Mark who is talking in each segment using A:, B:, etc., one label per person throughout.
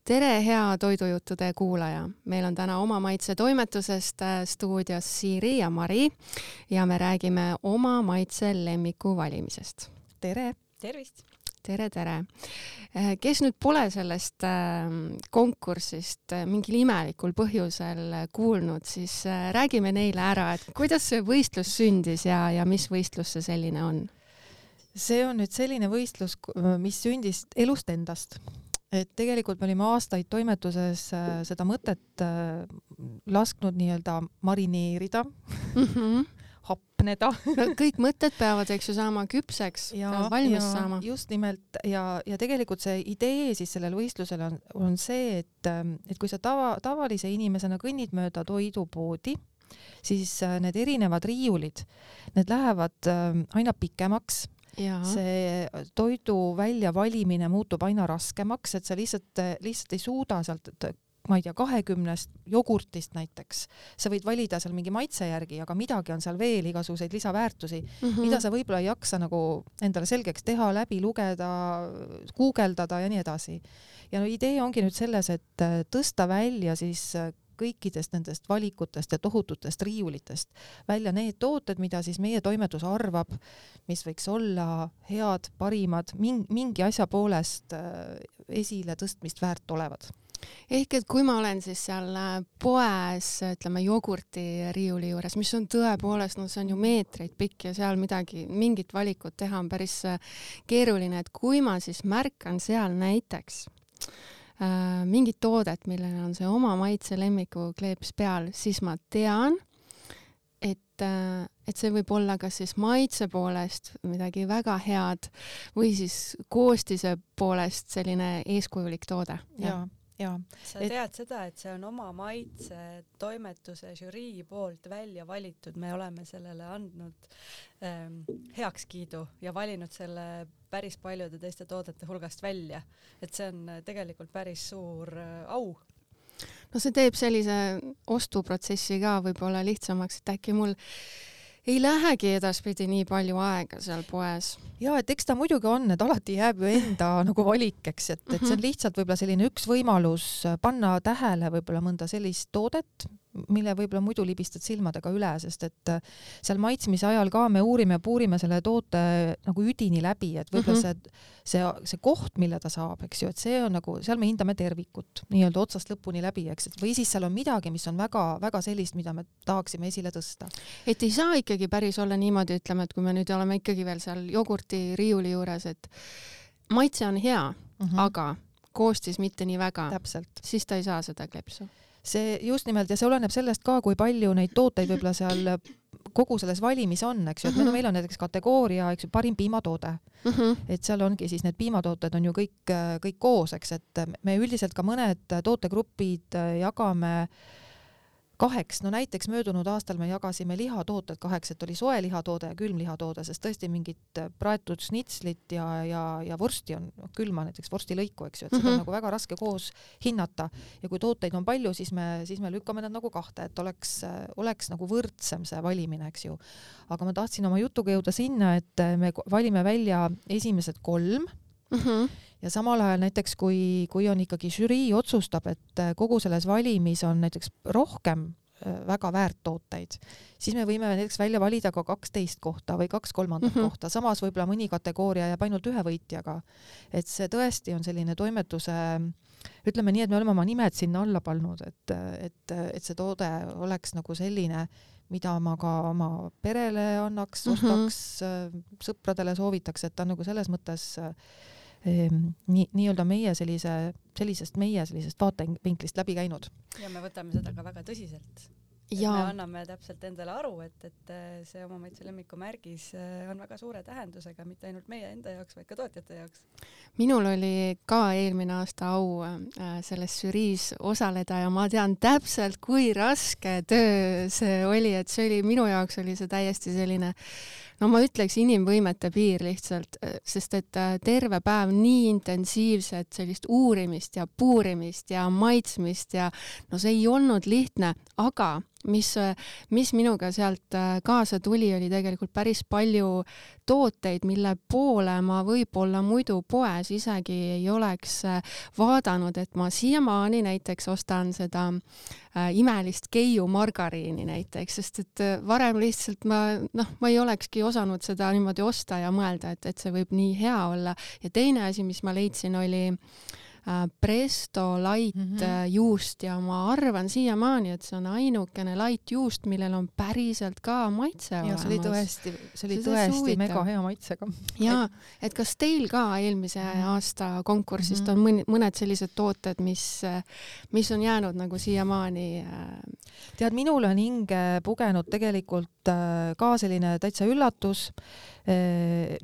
A: Tere, hea toidujuttude kuulaja! Meil on täna Oma Maitse toimetusest stuudios Siiri ja Mari ja me räägime oma maitse lemmiku valimisest.
B: Tere!
C: Tervist!
A: Tere, tere! Kes nüüd pole sellest konkursist mingil imelikul põhjusel kuulnud, siis räägime neile ära, et kuidas see võistlus sündis ja mis võistlus see selline on?
B: See on nüüd selline võistlus, mis sündis elust endast. Et tegelikult me olime aastaid toimetuses seda mõtet lasknud nii-öelda marineerida, hapneda.
A: Kõik mõtted peavad, eks ju, saama küpseks, valmis saama.
B: Just nimelt ja tegelikult see idee siis sellel võistlusel on see, et kui sa tavalise inimesena kõnnid mööda toidupoodi, siis need erinevad riiulid, need lähevad aina pikemaks.
A: Ja.
B: See toidu välja valimine muutub aina raskemaks, et sa lihtsalt ei suuda sealt, ma ei tea, 20 jogurtist näiteks. Sa võid valida seal mingi maitse järgi, aga midagi on seal veel igasuguseid lisaväärtusi, mida sa võib-olla ei jaksa nagu endale selgeks teha, läbi lugeda, guugeldada ja nii edasi. Ja idee ongi nüüd selles, et tõsta välja siis kõikidest nendest valikutest ja tohututest riiulitest välja need tooted, mida siis meie toimetus arvab, mis võiks olla head, parimad, mingi asja poolest esile tõstmist väärt olevad.
A: Ehk et kui ma olen siis seal poes, ütleme, jogurti riiuli juures, mis on tõepoolest, see on ju meetreid pikk ja seal mingit valikut teha on päris keeruline, et kui ma siis märkan seal näiteks mingit toodet, millele on see oma maitse lemmiku kleeps peal, siis ma tean, et see võib olla kas siis maitse poolest midagi väga head või siis koostise poolest selline eeskujulik toode.
B: Ja.
C: Sa tead seda, et see on oma maitse toimetuse žürii poolt välja valitud. Me oleme sellele andnud heakskiidu ja valinud selle päris paljude teiste toodete hulgast välja. Et see on tegelikult päris suur au.
A: No see teeb sellise ostuprotsessi ka võib-olla lihtsamaks, et äkki mul ei lähegi edaspidi nii palju aega seal poes.
B: Ja, et eks ta muidugi on, et alati jääb ju enda nagu valikeks, et see on lihtsalt võib-olla selline üks võimalus panna tähele võib-olla mõnda sellist toodet, mille võib-olla muidu libistad silmadega üle, sest et seal maitsmise ajal ka me puurime selle toote nagu üdini läbi, et võib-olla see koht, mille ta saab, eks ju, et see on nagu, seal me hindame tervikut, nii-öelda otsast lõpuni läbi, eks, või siis seal on midagi, mis on väga, väga sellist, mida me tahaksime esile tõsta.
A: Et ei saa ikkagi päris olla niimoodi, ütleme, et kui me nüüd oleme ikkagi veel seal jogurti riiuli juures, et maitse on hea, aga koostis mitte nii väga,
B: täpselt.
A: Siis ta ei saa seda klepsu.
B: See just nimelt ja see oleneb sellest ka, kui palju neid tooteid võib-olla seal kogu selles valimis on, eks ju, et meil on näiteks kategooria, eks ju, parim piimatoode. Et seal ongi siis need piimatooted on ju kõik koos, eks, et me üldiselt ka mõned tootegrupid jagame 2, no näiteks möödunud aastal me jagasime lihatooted 2, et oli soe lihatoode ja külm lihatoode, sest tõesti mingit praetud snitslit ja vorsti on külma, näiteks vorstilõiku, eks ju, et seda on nagu väga raske koos hinnata ja kui tooteid on palju, siis me lükkame nad nagu 2, et oleks nagu võrdsem see valimine, eks ju. Aga ma tahtsin oma jutuga jõuda sinna, et me valime välja esimesed 3 ja samal ajal näiteks, kui on ikkagi žürii otsustab, et kogu selles valimis on näiteks rohkem väga väärt tooteid, siis me võime näiteks välja valida ka 12 kohta või 2/3 kohta. Samas võib-olla mõni kategooria jääb ainult 1 võitjaga. Et see tõesti on selline toimetuse, ütleme nii, et me oleme oma nimed sinna alla pannud, et see toode oleks nagu selline, mida ma ka oma perele annaks, ostaks, sõpradele soovitaks, et ta nagu selles mõttes nii-öelda meie sellisest vaatevinklist läbi käinud.
C: Ja me võtame seda ka väga tõsiselt. Me anname täpselt endale aru, et see oma maitse lemmiku märgis on väga suure tähendusega, mitte ainult meie enda jaoks, vaid ka tootjate jaoks.
A: Minul oli ka eelmine aasta au selles žüriis osaleda ja ma tean täpselt, kui raske töö see oli, et minu jaoks oli see täiesti selline, no ma ütleks inimvõimete piir lihtsalt, sest et terve päev nii intensiivset sellist uurimist ja puurimist ja maitsmist ja no see ei olnud lihtne, aga mis minuga sealt kaasa tuli, oli tegelikult päris palju tooteid, mille poole ma võib-olla muidu poes isegi ei oleks vaadanud, et ma siiamaani näiteks ostan seda imelist Keiu margariini näiteks, sest et varem lihtsalt ma ei olekski osanud seda niimoodi osta ja mõelda, et see võib nii hea olla. Ja teine asi, mis ma leidsin, oli Presto Light juust ja ma arvan siiamaani, et see on ainukene light juust, millel on päriselt ka maitse olemas.
B: See oli tõesti mega hea maitsega.
A: Ja, et kas teil ka eelmise aasta konkursist on mõned sellised tooted, mis on jäänud nagu siiamaani?
B: Tead, minul on hinge pugenud tegelikult ka selline täitsa üllatus,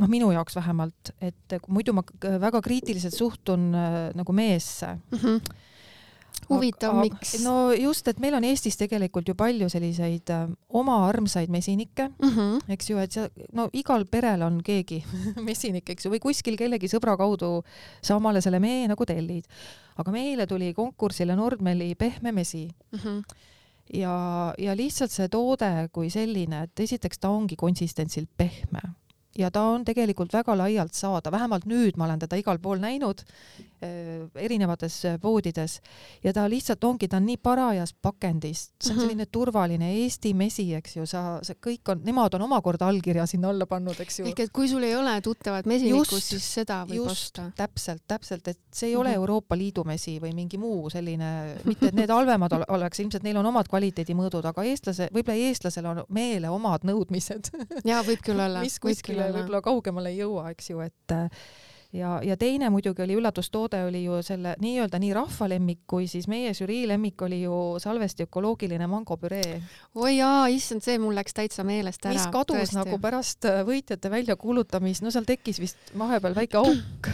B: minu jaoks vähemalt, et muidu ma väga kriitiliselt suhtun nagu meesse.
A: Huvitav, miks?
B: No just, et meil on Eestis tegelikult ju palju selliseid oma armsaid mesinikke, eks ju, et igal perel on keegi mesinik, eks ju, või kuskil kellegi sõbra kaudu sa omale selle mee nagu tellid. Aga meile tuli konkursile Nordmeli pehme mesi. Ja lihtsalt see toode kui selline, et esiteks ta ongi konsistentsilt pehme ja ta on tegelikult väga laialt saada, vähemalt nüüd ma olen teda igal pool näinud erinevates poodides ja ta lihtsalt ongi, ta on nii parajas pakendist, see on selline turvaline Eesti mesi, eks ju, nemad on omakorda allkirja sinna alla pannud, eks ju.
A: Ehk et kui sul ei ole tuttavat mesinikust, siis seda võib osta.
B: Täpselt, et see ei ole Euroopa Liidu mesi või mingi muu selline, mitte et need halvemad oleks, ilmselt neil on omad kvaliteedimõõdud, aga võib-olla eestlasel on meele omad nõudmised.
A: Jaa, võib küll olla.
B: Mis kuskile võib-olla kaugemale ei jõua, eks ju, et ja teine muidugi oli üllatustoode, oli ju selle nii-öelda nii rahvalemmik, kui siis meie žürii lemmik oli ju Salvesti ökoloogiline mangopüree.
A: Oi jaa, issand, see mul läks täitsa meelest ära.
B: Mis kadus tõesti nagu pärast võitjate väljakuulutamist, seal tekkis vist vahepeal väike auk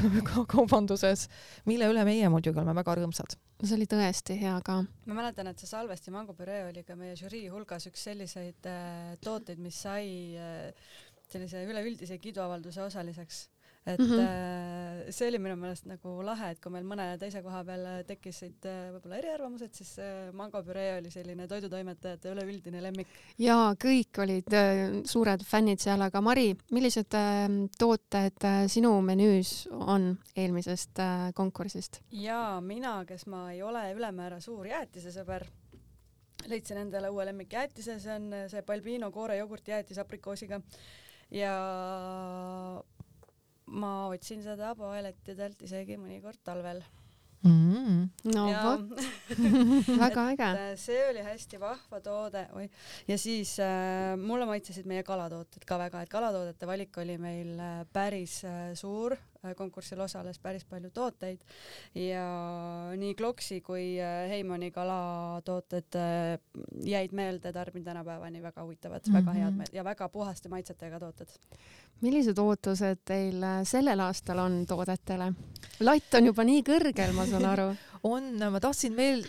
B: kaubanduses, mille üle meie muidugi oleme väga rõõmsad.
A: See oli tõesti hea ka.
C: Ma mäletan, et see Salvesti mangopüree oli ka meie žürii hulgas üks selliseid tooteid, mis sai sellise üleüldise kiiduavalduse osaliseks. Et see oli minu meelest nagu lahe, et kui meil mõne teise koha peal tekkisid võib-olla eriarvamused, siis mangopüree oli selline toidutoimetajate üleüldine lemmik.
A: Jaa, kõik olid suured fännid seal, aga Mari, millised tooted sinu menüüs on eelmisest konkursist?
C: Jaa, mina, kes ma ei ole ülemäära suur jäätise sõber, leidsin endale uue lemmikjäätise, see on see Balbino koore jogurti jäätis aprikoosiga ja ma otsin seda poelettidelt isegi mõnikord talvel.
A: No vot, väga äge.
C: See oli hästi vahva toode. Ja siis mulle maitsesid meie kalatooted ka väga, et kalatoodete valik oli meil päris suur, konkursil osales päris palju tooteid ja nii Kloksi kui Heimani kalatooted jäid meelde, tarbin tänapäevani väga huvitavad, väga head ja väga puhaste maitsetega tooted.
A: Millised ootused teil sellel aastal on toodetele? Latt on juba nii kõrgel, ma saan aru.
B: Ma tahtsin veel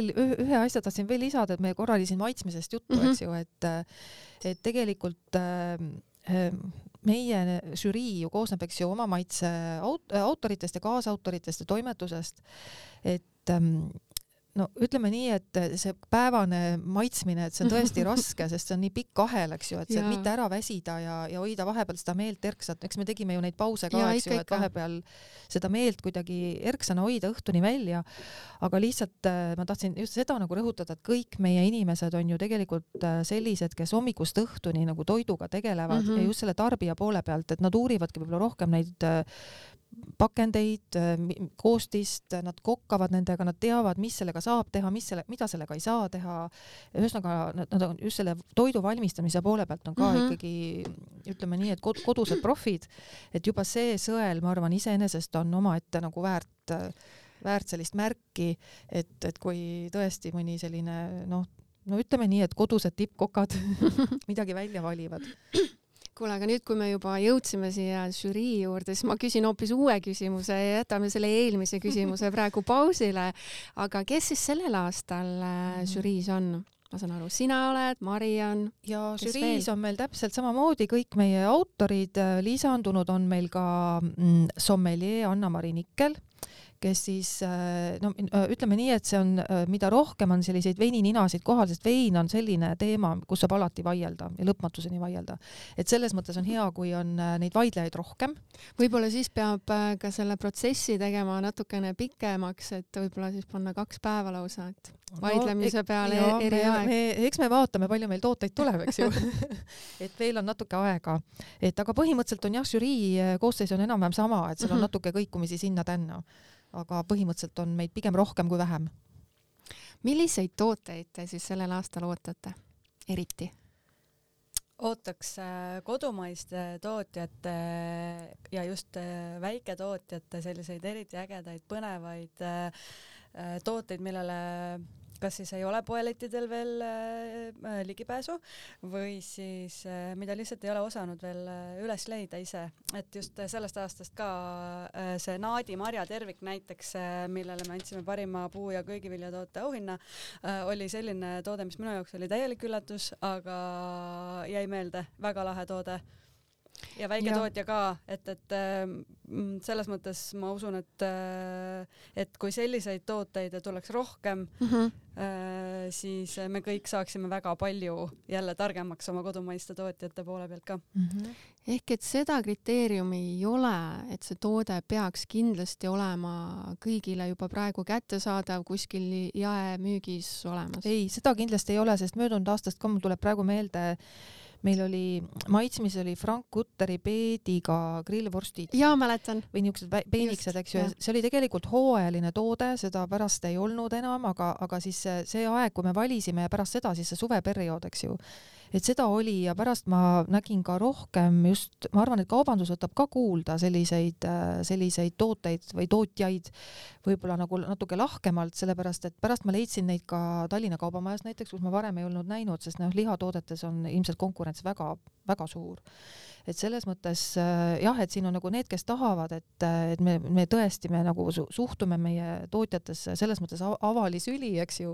B: ühe asja tahtsin veel lisada, et me korra oli siin maitsmisest juttu, eks ju, et tegelikult meie žürii ju koosneb, eks ju, oma maitse autoritest ja kaasautoritest ja toimetusest, et ütleme nii, et see päevane maitsmine, et see on tõesti raske, sest see on nii pikk ahel, eks ju, et see mitte ära väsida ja hoida vahepeal seda meelt erksat. Eks me tegime ju neid pause ka, eks ju, et vahepeal seda meelt kuidagi erksana hoida õhtuni välja. Aga lihtsalt ma tahtsin just seda nagu rõhutada, et kõik meie inimesed on ju tegelikult sellised, kes hommikust õhtuni nagu toiduga tegelevad ja just selle tarbija poole pealt, et nad uurivadki võib-olla rohkem neid pakendeid, koostist, nad kokkavad nendega, nad teavad, mis sellega saab teha, mida sellega ei saa teha. Ühesõnaga, nad on just selle toidu valmistamise poole pealt on ka ikkagi, ütleme nii, et kodused profid, et juba see sõel, ma arvan, iseenesest on omaette nagu väärt sellist märki, et kui tõesti mõni selline, ütleme nii, et kodused tippkokad midagi välja valivad.
A: Kuule, aga nüüd, kui me juba jõudsime siia žürii juurde, siis ma küsin hoopis uue küsimuse ja jätame selle eelmise küsimuse praegu pausile. Aga kes siis sellel aastal žüriis on? Ma saan aru, sina oled, Mari on.
B: Ja žüriis on meil täpselt samamoodi kõik meie autorid. Lisandunud on meil ka sommelier Anna-Mari Nikkel, kes siis no ütleme nii, et see on, mida rohkem on selliseid veinininasid kohal, sest vein on selline teema, kus saab alati vaielda ja lõpmatuseni vaielda. Et selles mõttes on hea, kui on neid vaidlejaid rohkem.
A: Võib-olla siis peab ka selle protsessi tegema natukene pikemaks, et võib-olla siis panna 2 päeva lausa, et vaidlemise peale eri aeg.
B: Eks me vaatame, palju meil tooteid tuleb, eks ju. Et veel on natuke aega. Et aga põhimõtteliselt on jah, žürii koosseis on enam-vähem sama, et seal on natuke kõikumisi sinna-tänna. Aga põhimõtteliselt on meid pigem rohkem kui vähem.
A: Milliseid tooteid te siis sellel aastal ootate eriti?
C: Ootaks kodumaiste tootjate ja just väiketootjate selliseid eriti ägedaid, põnevaid tooteid, millele kas siis ei ole poelettidel veel ligipääsu või siis mida lihtsalt ei ole osanud veel üles leida ise. Et just sellest aastast ka see Naadi marja tervik näiteks, millele me andsime parima puu- ja köögiviljatoote auhinna, oli selline toode, mis minu jaoks oli täielik üllatus, aga jäi meelde, väga lahe toode. Ja väiketootja ka, et selles mõttes ma usun, et kui selliseid tooteid tuleks rohkem, siis me kõik saaksime väga palju jälle targemaks oma kodumaiste tootjate poole pealt ka.
A: Ehk et seda kriteeriumi ei ole, et see toode peaks kindlasti olema kõigile juba praegu kättesaadav kuskil jaemüügis olemas.
B: Ei, seda kindlasti ei ole, sest möödunud aastast ka mul tuleb praegu meelde, meil oli maitsmis oli Frank Kutteri peediga grillvorstid.
A: Jaa, mäletan.
B: Või niisugused peeniksed, eks ju. See oli tegelikult hooajaline toode, seda pärast ei olnud enam, aga siis see aeg, kui me valisime ja pärast seda siis see suveperiood, eks ju. Et seda oli ja pärast ma nägin ka rohkem just, ma arvan, et kaubandus võtab ka kuulda selliseid tooteid või tootjaid võib-olla nagu natuke lahkemalt, sellepärast, et pärast ma leidsin neid ka Tallinna kaubamajas näiteks, kus ma varem ei olnud näinud, sest lihatoodetes on ilmselt konkurents väga, väga suur. Et selles mõttes jah, et siin on nagu need, kes tahavad, et me tõesti nagu suhtume meie tootjatesse selles mõttes avalisüli, eks ju,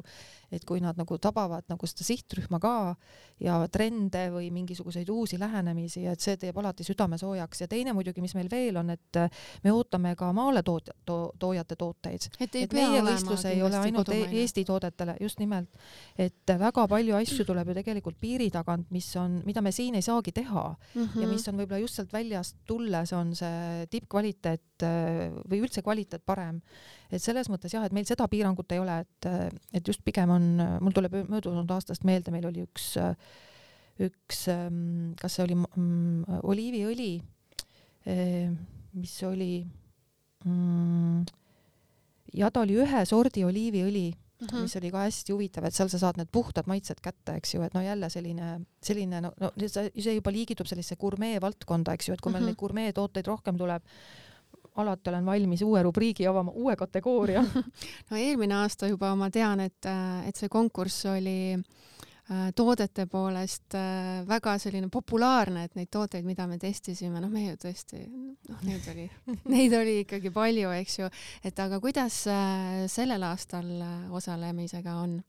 B: et kui nad nagu tabavad nagu seda sihtrühma ka ja trende või mingisuguseid uusi lähenemisi, et see teeb alati südame soojaks. Ja teine muidugi, mis meil veel on, et me ootame ka maale toojate tooteid. Et meie võistlus ei ole ainult Eesti toodetele, just nimelt, et väga palju asju tuleb ju tegelikult piiri tagant, mida me siin ei saagi teha ja mis on võib-olla just sealt väljast tulles on see tippkvaliteet või üldse kvaliteet parem. Et selles mõttes jah, et meil seda piirangut ei ole, et just pigem on, mul tuleb möödunud aastast meelde, meil oli üks kas see oli oliiviõli, mis oli ja ta oli ühe sordi oliiviõli, mis oli ka hästi huvitav, et seal sa saad need puhtad maitsed kätte, eks ju, et no jälle selline see juba liigitub sellise gurmee valdkonda, eks ju, et kui meil neid gurmee tooteid rohkem tuleb, alati olen valmis uue rubriigi avama, uue kategooria.
A: No eelmine aasta juba ma tean, et see konkurss oli toodete poolest väga selline populaarne, et neid tooteid, mida me testisime, me ju tõesti, neid oli ikkagi palju, eks ju, et aga kuidas sellel aastal osalemisega on?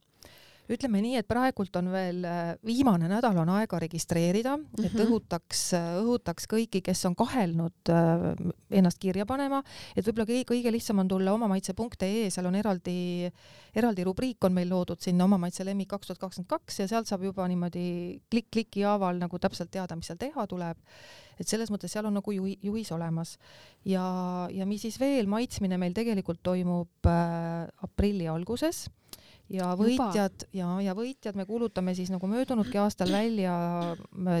B: Ütleme nii, et praegult on veel viimane nädal on aega registreerida, et õhutaks kõiki, kes on kahelnud ennast kirja panema, et võib-olla kõige lihtsam on tulla omamaitse.ee, seal on eraldi rubriik on meil loodud sinna Omamaitse lemmik 2022 ja sealt saab juba niimoodi kliki haaval nagu täpselt teada, mis seal teha tuleb. Et selles mõttes seal on nagu juhis olemas. Ja mis siis veel, maitsmine meil tegelikult toimub aprilli alguses. Ja võitjad me kuulutame siis nagu möödunudki aastal välja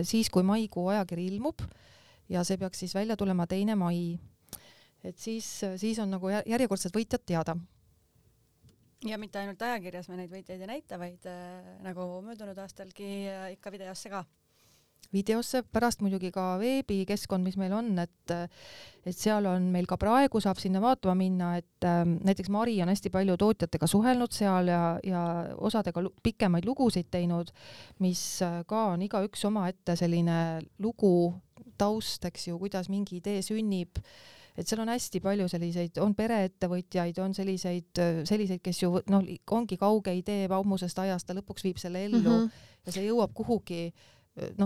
B: siis, kui maikuu ajakiri ilmub ja see peaks siis välja tulema 2. mai. Et siis on nagu järjekordselt võitjad teada.
C: Ja mitte ainult ajakirjas me neid võitjaid ei näita, vaid nagu möödunud aastalgi ikka videosse ka.
B: Videosse, pärast muidugi ka veebikeskkond, mis meil on, et seal on meil ka praegu saab sinna vaatama minna, et näiteks Mari on hästi palju tootjatega suhelnud seal ja osadega pikemaid lugusid teinud, mis ka on igaüks oma ette selline lugu taust, eks ju, kuidas mingi idee sünnib, et seal on hästi palju selliseid, on pereettevõtjaid, on selliseid, kes ju ongi kauge idee ammusest ajast, ta lõpuks viib selle ellu ja see jõuab kuhugi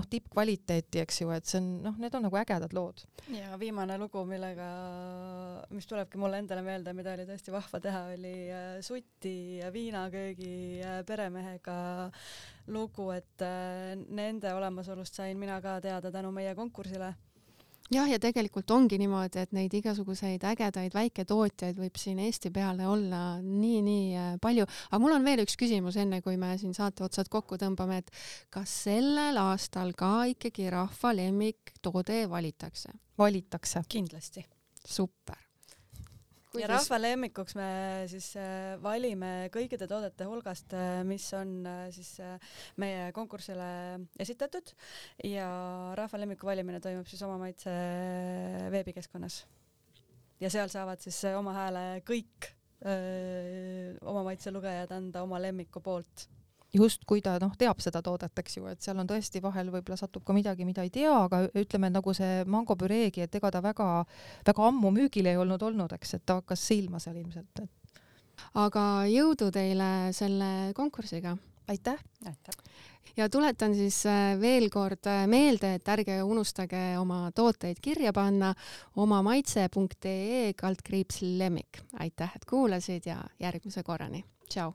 B: tippkvaliteeti, eks ju, et see on, need on nagu ägedad lood.
C: Ja viimane lugu, mis tulebki mulle endale meelde, mida oli tõesti vahva teha, oli Suti ja viinaköögi peremehega lugu, et nende olemasolust sain mina ka teada tänu meie konkursile.
A: Jah, ja tegelikult ongi niimoodi, et neid igasuguseid ägedaid väiketootjaid võib siin Eesti peale olla nii palju. Aga mul on veel üks küsimus enne, kui me siin saate otsad kokku tõmbame, et kas sellel aastal ka ikkagi rahva lemmiktoode valitakse?
B: Valitakse.
C: Kindlasti.
A: Super.
C: Ja rahva lemmikuks me siis valime kõikide toodete hulgast, mis on siis meie konkursile esitatud ja rahva lemmiku valimine toimub siis Oma Maitse veebikeskkonnas. Ja seal saavad siis oma hääle kõik Oma Maitse lugejad anda oma lemmiku poolt.
B: Just kui ta teab seda toodet, eks ju, et seal on tõesti vahel võib-olla satub ka midagi, mida ei tea, aga ütleme nagu see mangopüreegi, et ega ta väga ammu müügil ei olnud, eks, et ta hakkas silma seal ilmselt.
A: Aga jõudu teile selle konkursiga.
B: Aitäh!
A: Ja tuletan siis veel kord meelde, et ärge unustage oma tooteid kirja panna omamaitse.ee/lemmik. Aitäh, et kuulasid ja järgmise korrani. Tšau!